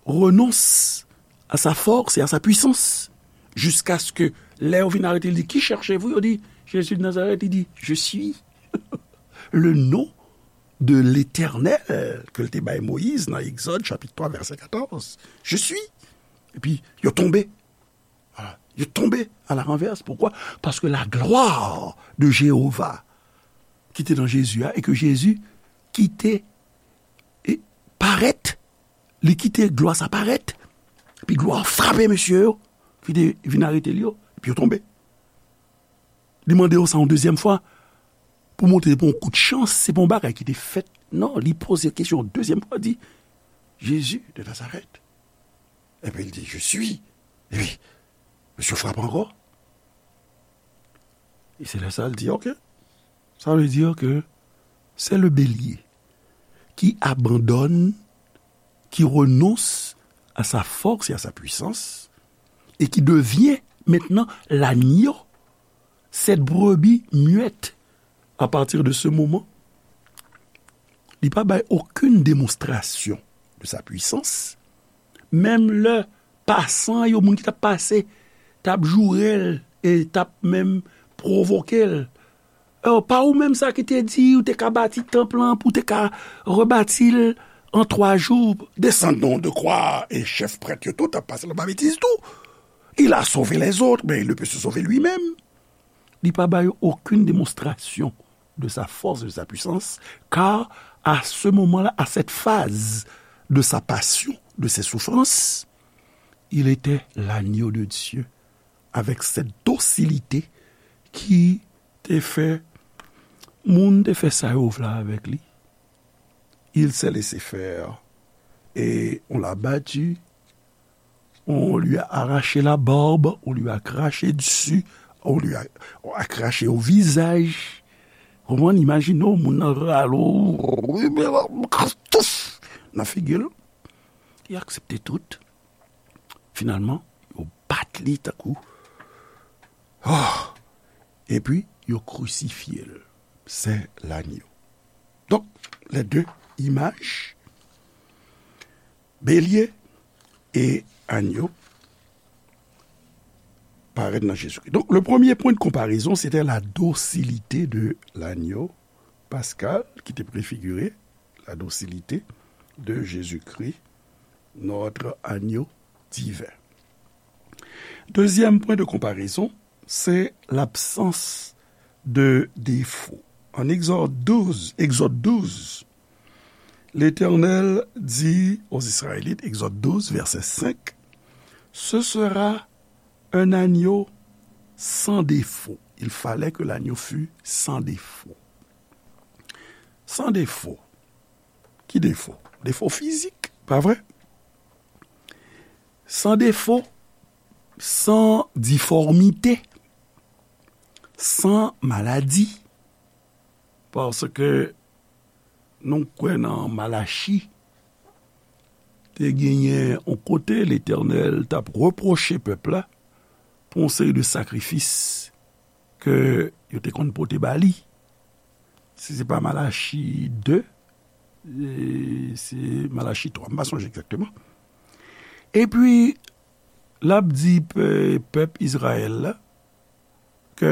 renonce à sa force et à sa puissance, jusqu'à ce que lè yo vin arete l, li di, qui cherchez-vous? Yo di, Jésus de Nazareth, li di, je suis. Le nom de l'Éternel ke l te bay Moyiz nan Egzòd chapit twa vèsè katòz. Je suis. Epi yo tonbe. Voilà. Yo tonbe à la renverse. Pourquoi? Parce que la gloire de Jéhovah ki te nan Jezi a, e ke Jezi kite e parèt, li kite glwa sa parèt, epi glwa frape mesye yo ki te vin arete l yo, epi yo tonbe. Li mande yo sa yon dezyèm fwa pou montre se pa yon kout chans, se pa yon bagay ki te fèt. Non, li poze kesyon yon dezyèm fwa, di, Jésus de Nazareth. Epi l di, je suis. Epi, mesye frape ankò. E se lè sa l di, ok. Ça veut dire que c'est le bélier qui abandonne, qui renonce à sa force et à sa puissance, et qui devient maintenant l'agneau, cette brebis muette. À partir de ce moment, li pa bay okenn demonstrasyon de sa puissance. Menm lè pasan yo, moun ki t ap pase, t ap joure l e t ap menm pwovoke l. E pa ou menm sa ki te di ou te ka bati tanp lan, pou te ka rebati l an twa jou? Descendons de croix, e chèf prèt yo tou t ap pase l anba betiz tou. Il a sauvé les autres, mais il ne peut se sauver lui-même. Li pa ba yo okenn demonstrasyon de sa force, de sa puissance, car à ce moment-là, à cette phase de sa passion, de ses souffrances, il était l'agneau de Dieu, avec cette docilité ki te fè moun te fè sa yo vle avèk li. Il s'est laissé faire et on l'a battu, on lui a arraché la barbe, on lui a craché dessus, on lui a, on a craché au visage. Konprann, imajine w, moun nan rale w nan figi l. Li aksepte tout. Finalman, yo bat li tankou. Oh! Epi, yo krisifye l. C'est l'agneau. Donc, les deux images, bélier et agneau, parèt nan Jezikri. Donk, le premye pwen de konparezon, se te la dosilite de l'agneau pascal, ki te prefigire la dosilite de Jezikri, notre agneau divin. Dezyèm pwen de konparezon, se labsans de defo. En Exode douze, Exode douze, l'Éternel dit aux Israélites, Exode douze, verset cinq, ce sera Un agneau sans défaut. Il fallait que l'agneau fût sans défaut. Sans défaut. Ki defo? Defo fizik, pa vre? Sans défaut, sans difformité, sans maladie. Paske nou kwè nan Malachi, te genyen yon kote Letènèl t ap repwoche pèp la pou yon seri de sakrifis ke yo te konn pote ba li. Si se pa Malachi de, e, se Malachi twa, m pa sonje egzakteman. Epi, l ap di pe-, pèp Izrayèl la ke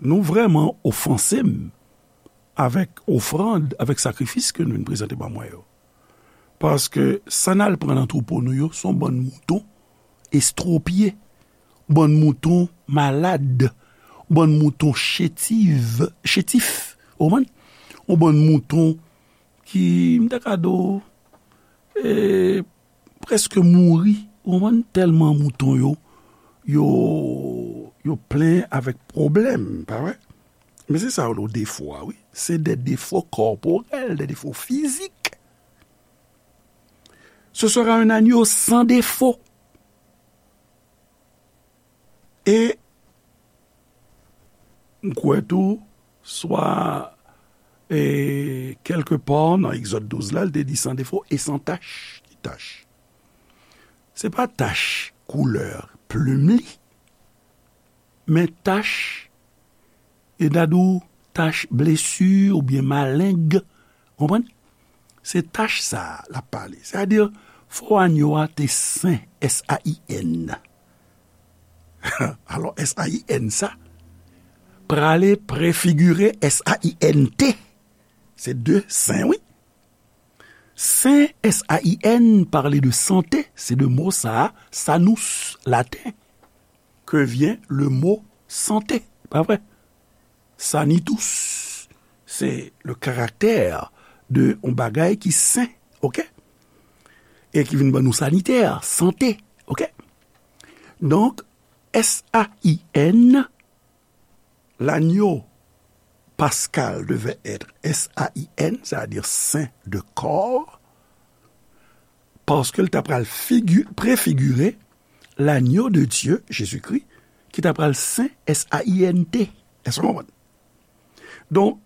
nou vrèman ofanse m avèk ofrann, avèk sakrifis ke nou vin prezante ban mwen yo. Paske sa n al pran nan twoupo nou yo, se yon bann mouton estwopye, bann mouton malad, bann mouton chétif, chétif, ou konprann? Yon bann mouton ki, m ta ka di w, e, prèske mouri, ou konprann, tèlman mouton yo, yo, yo plen avèk pwoblèm, pa vre? Men se sa yo rele defo a, wi. Se de defo kòporèl, de defo fizik. Ce sera un agneau sans défaut. E m kwè tou, swa, e, kèlke pa nan Egzòd douz la, l te di sans défaut et sans tache. Ki tach? Se pa tach koulè plim li, men tach, e n a di w tach blesi oubyen maleng, konprann? Se tach sa a l ap pale. Sètadi, fò agno a te sen, S A I N. Alò, S A I N sa, prale prefigire S A I N T. Se de sen, wi. Sen, S A I N, pale de sante, se de mo sa a, sanus, laten, que vient le mot santé, pa vre? Sanitus, se le karaktè de yon bagay ki sen, oke? E ki vin ban nou sanitè, sante, oke? Donk, S A I N, l'agneau pascal devait être S A I N, c'est-à-dire saint de corps, paske l ta pral figi-, prefigire l'agneau de Dieu, Jezikri, ki ta pral sen, S A I N T. Èske w konprann? Donk,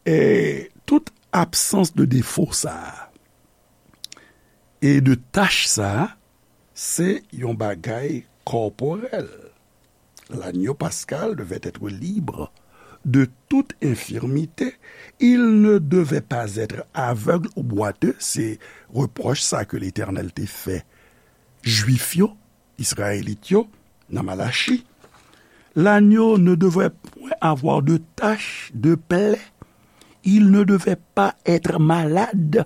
e, tout absans de defo sa a e de tach sa a, se yon bagay kòporèl. L'agneau pascal devait être libre de toute infirmité. Il ne devait pas être aveugle ou boiteux. Se repwòch sa ke Letènèl te fè Jwif yo, Izrayelit yo, nan Malachi. L'agneau ne devait point avoir de tache, de plaie. Il ne devait pas être malade.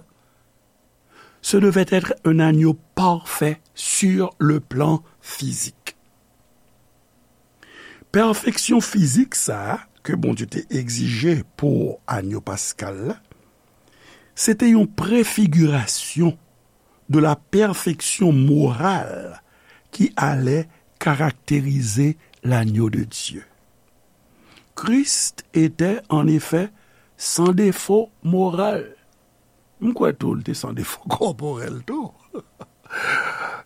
Ce devait être un agneau parfait sur le plan physique. Pèfeksyon fizik sa a ke Bondye te egzije pou agno paskal la, se te yon prefigirasyon de la perfection morale qui allait caractériser l'agneau de Dieu. Christ était en effet sans défaut moral. M kwè tou, li te san defo kòporèl tou.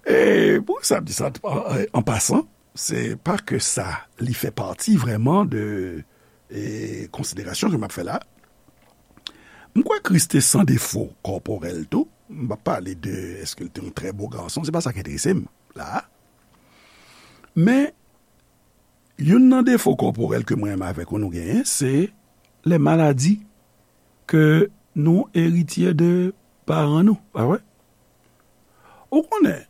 E pou sa, m di sa, an pasan, se pa ke sa, li fè pati vrèman de, e, konsiderasyon ke m ap fè la. M kwè Kris te san defo kòporèl tou. M p ap pale de èske l te yon trè bo gason, se pa sa k enterese m la. Men, youn nan defo kòporèl ke mwen menm avèk ou nou genyen, se lè maladi ke nou eritye de paran nou, pa vre? Ou konnen,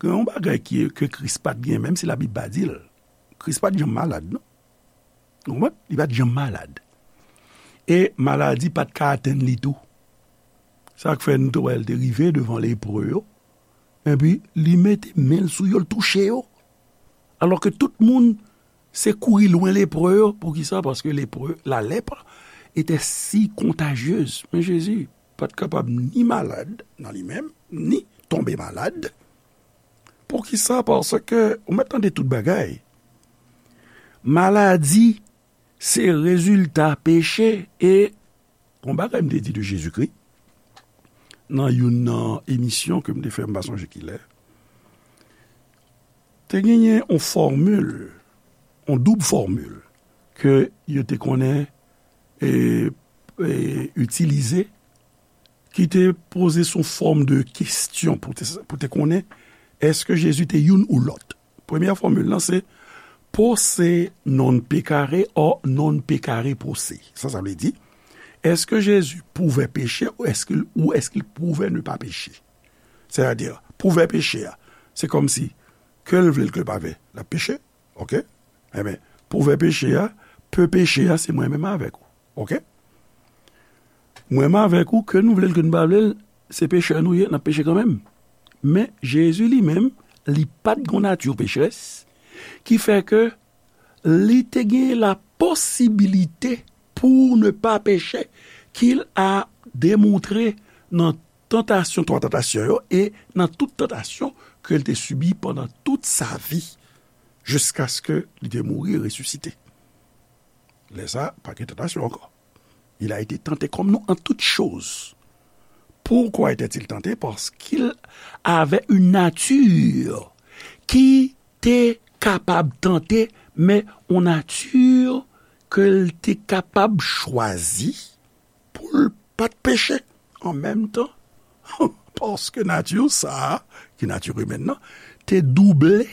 gen yon bagay ki, ke Kris pa t gen, menm si Labib pa di l. Kris pa t janm malad, non. Ou konprann? Li pa t janm malad. E maladi pa t ka atenn li tou. Sa k fè nou te wè l te rive devan lepre yo, epi li mete men l sou yo, l touche yo. Alò ke tout moun se kouri lwen lepre yo. Poukisa? Paske lepre, la lèpre était si contagieuse. Men Jezi pa t kapab ni malad nan li menm, ni tonbe malad. Poukisa? Paske ou mèt tande tout bagay. Maladi se rezilta peche. E yon bagay m te di de Jezikri nan youn nan emisyon ke m te fè, m pa sonje kilè, te genyen yon fòmil, yon doub fòmil ke yo te konnen e, e, itilize, ki te poze sou fòm de kesyon pou te, pou te konnen èske Jezi te youn ou lòt. Premyè fòmil lan se posse non peccare o non peccare posse. Sa, sa vle di, èske Jezi pouvè peche ou èske, ou èske l pouvè ne pa peche? Sètadi, pouvè peche a, se kòmsi ke l vle l ke l pa vle, l ap peche. Oke? Enben, pouvè peche a, pe peche a, se mwen menm avèk ou. Oke? Mwen menm avèk ou, ke nou vle l, ke nou pa vle l, se pechè nou ye, n ap peche kanmenm. Men, Jezi li menm, li pa t gon nati pecherès, ki fè ke li te gen la posibilite pou ne pa peche, ki l a demontre nan tantasyon, twa tantasyon yo, e nan tout tantasyon ke l te sibi pandan tout sa vi, jiskaske li te mouri e resisite. Lè sa, pa gen tantasyon ankò. Il a été tenté comme nous en toutes choses. Pourquoi était-il tenté? Parce qu'il avait une nature ki te kapab tante, men yon nati ke l te kapab chwazi pou l pa t peche an menm tan. Paske nati sa a, ki nati imèn nan, te double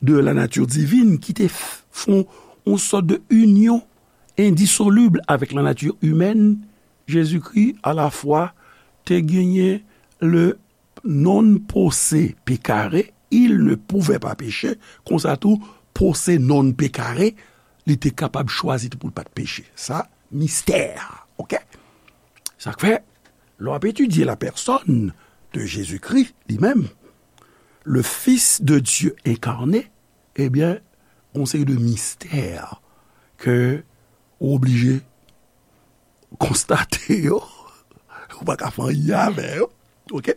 de la nature divine, ki te f-, fè yon sòt de inyon endisolib avèk la nature humaine, Jezikri alafwa te genyen le non posse peccare, il ne pouvait pas pécher, konsa tou, posse non peccare, li te kapab chwazi tou pou l pa t peche. Sa, mistè, oke? Sa k fè, lè w ap etidye la personne de Jésus-Christ, li menm, le Fils de Dieu incarné, ebyen, gon seri de mistè ke ou oblije konstate yo, ou pa ka fè anyen avè yo. Oke?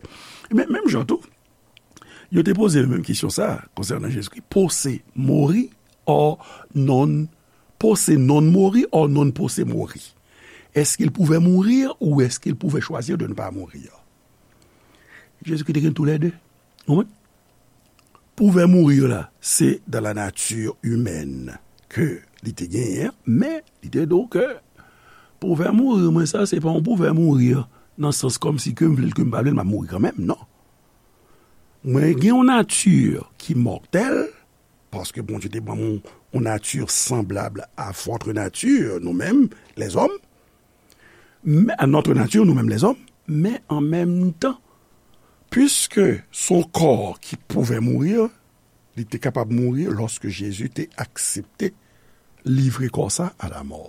Men, menm jan tou, yo te poze menm kesyon sa konsènan Jezikri, posse mori o non, posse non mori o non posse mori. Est-ce qu'il pouvait mourir ou est-ce qu'il pouvait choisir de ne pas mourir? Jezikri te gen toulède. Ou konprann? Pouvè mouri la, se dans la nature humaine ke li te genyen, men li te di w ke pouvè mouri mwen sa, se pa yon pouvè mouri nan sans kòmsi ke m vle l, ke m pa vle l, m ap mouri kanmenm, non. Mwen gen yon nati ki mòtèl, paske Bondye te ban m yon, yon nati sanblab a votre nature, nou menm, lèzòm, men, à notre nature, nou menm lèzòm, men an menm tan, piske se yon kò ki pouvè mouri, li te kapab mouri lòske Jezi te aksepte livre kò sa a la mò.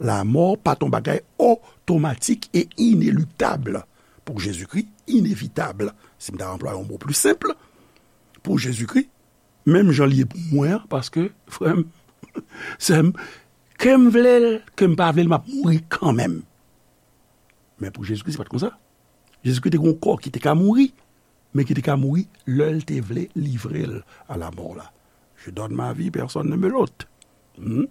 La mò pa t yon bagay otomatik e ineluktab pou Jezikri, inevitab, si m ta anplwaye yon mo pli senp, pou Jezikri, menm jan l ye pou mwen an, paske, frè m, sè m, ke m vle l, ke m pa vle l, m ap mouri kanmenm. Men pou Jezikri, se pa t konsa. Jezikri te gen yon kò ki te ka mouri, men ki te ka mouri lè l te vle livre l a la mò la. Je donne ma vie, personne ne me l'ôte. Hmm?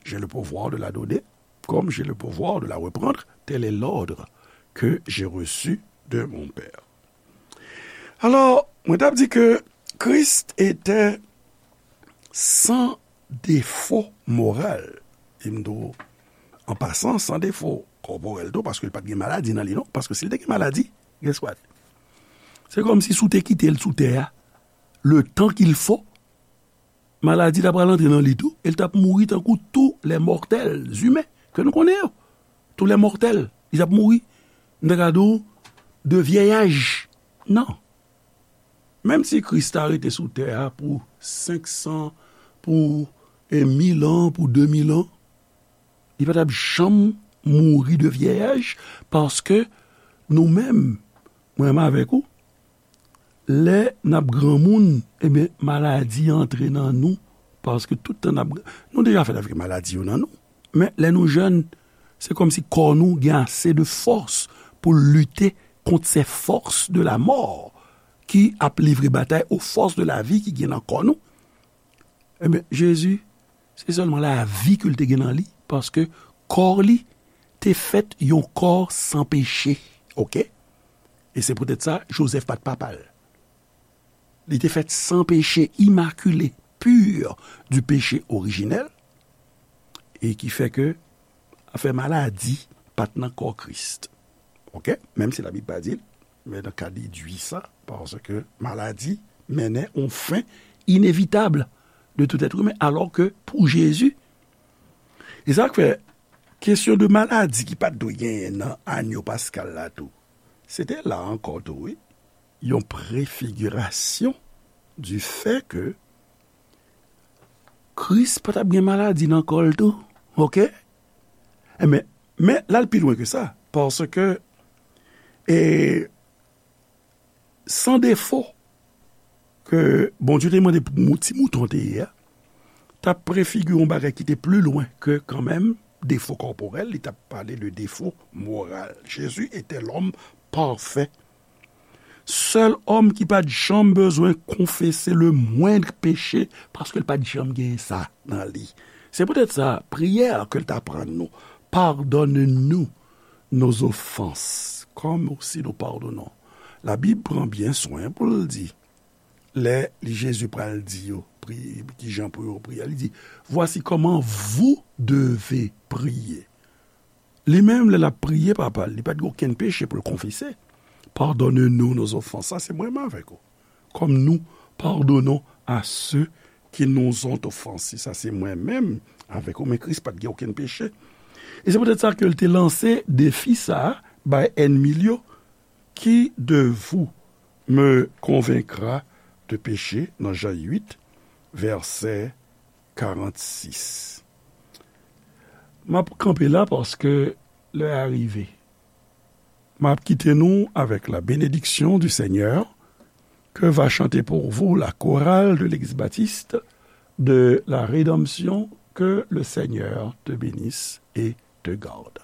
J'ai le pouvoir de la donner, comme j'ai le pouvoir de la reprendre. Tel est l'ordre que j'ai reçu de mon Père. Alò, mwen t ap di ke Christ était sans défaut moral. E m di w, an pasan, san defo kòporèl tou, paske l pa t gen maladi nan li, non. Paske si l te gen maladi, guess what? Se kòmsi si w te kite l sou tè a, le temps qu'il faut, maladi ta pral antre nan li tou, e l t ap mouri tankou tous les mortels humains ke nou konnen yo. Tous les mortels, li t ap mouri, m ta ka di w, de vyèyaj. Non. Menm si Kris ta rete sou tè a pou senk san, pou, e, mil an, pou de mil an, li pa t ap janm mouri de vyèyaj, paske nou menm, mwen menm avèk ou, lè n ap granmoun, ebyen, maladi antre nan nou, paske tout tan n ap, nou deja fèt avèk maladi yo nan nou. Men, lè nou jèn, se kòmsi kò nou gen ase de fòs pou l lite kont ces forces de la mort ki ap livre batay aux forces de la vie ki gen nan kò nou. Ebyen, Jezi, se sèlman lavi ke l te gen nan li, paske kò li te fèt yon kò san peche, oke? E se poutèt sa, Jozèf pa t papa l. Li te fèt san peche, imakile, pur du péché originel, e ki fè ke afè maladi pa t nan kò Kris. Oke? Menm si Labib pa di l, men nan ka dedui sa, paske maladi mennen yon fen inevitab de tout être humain, alò ke pou Jezi, e sa k fè kesyon de maladi ki pa t dwe genyen nan anyo paskal la tou, se te la ankò tou, wi, yon prefigirasyon du fè ke Kris pa t ap gen maladi nan kò l tou, oke? Enben, men l al pi lwen ke sa, paske, e, san defo ke Bondye te mande pou mou-, ti mouton te ye a, t ap prefigire yon bagay ki te pli lwen ke kanmenm defo kòporèl, li t ap pale de defo moral. Jezi etè lòm pafè. Sèl òm ki pa t janm bezwen konfese le moindre péché, paske l pa t janm gen sa nan li. Se poutèt sa, priyè a ke l t aprann nou, Pardonne-nous nos offenses, comme aussi nous pardonnons. Labib pran byen swen pou l di, lè li, Jezi pral di yo, pri-, ki jan pou yo priye, li di, Voici comment vous devez prier. Li menm, lè l ap priye Papa l, li pa t gen okenn peche pou l konfese. Pardonne-nous nos offenses. Sa se mwen menm avèk ou. Comme nous pardonnons à ceux qui nous ont offensés. Sa se mwen menm avèk ou, men Kris pa t gen okenn peche. E se poutèt sa ke l te lanse defi sa a bay ènmi l yo, Qui de vous me convaincra de péché, nan Jan uit, vèsè karannsis. M ap kanpe la paske lè a rive. M ap kite nou avec la bénédiction du Seigneur, que va chanter pour vous la chorale de l'Église baptiste de la Rédemption. Que le Seigneur te bénisse et te garde.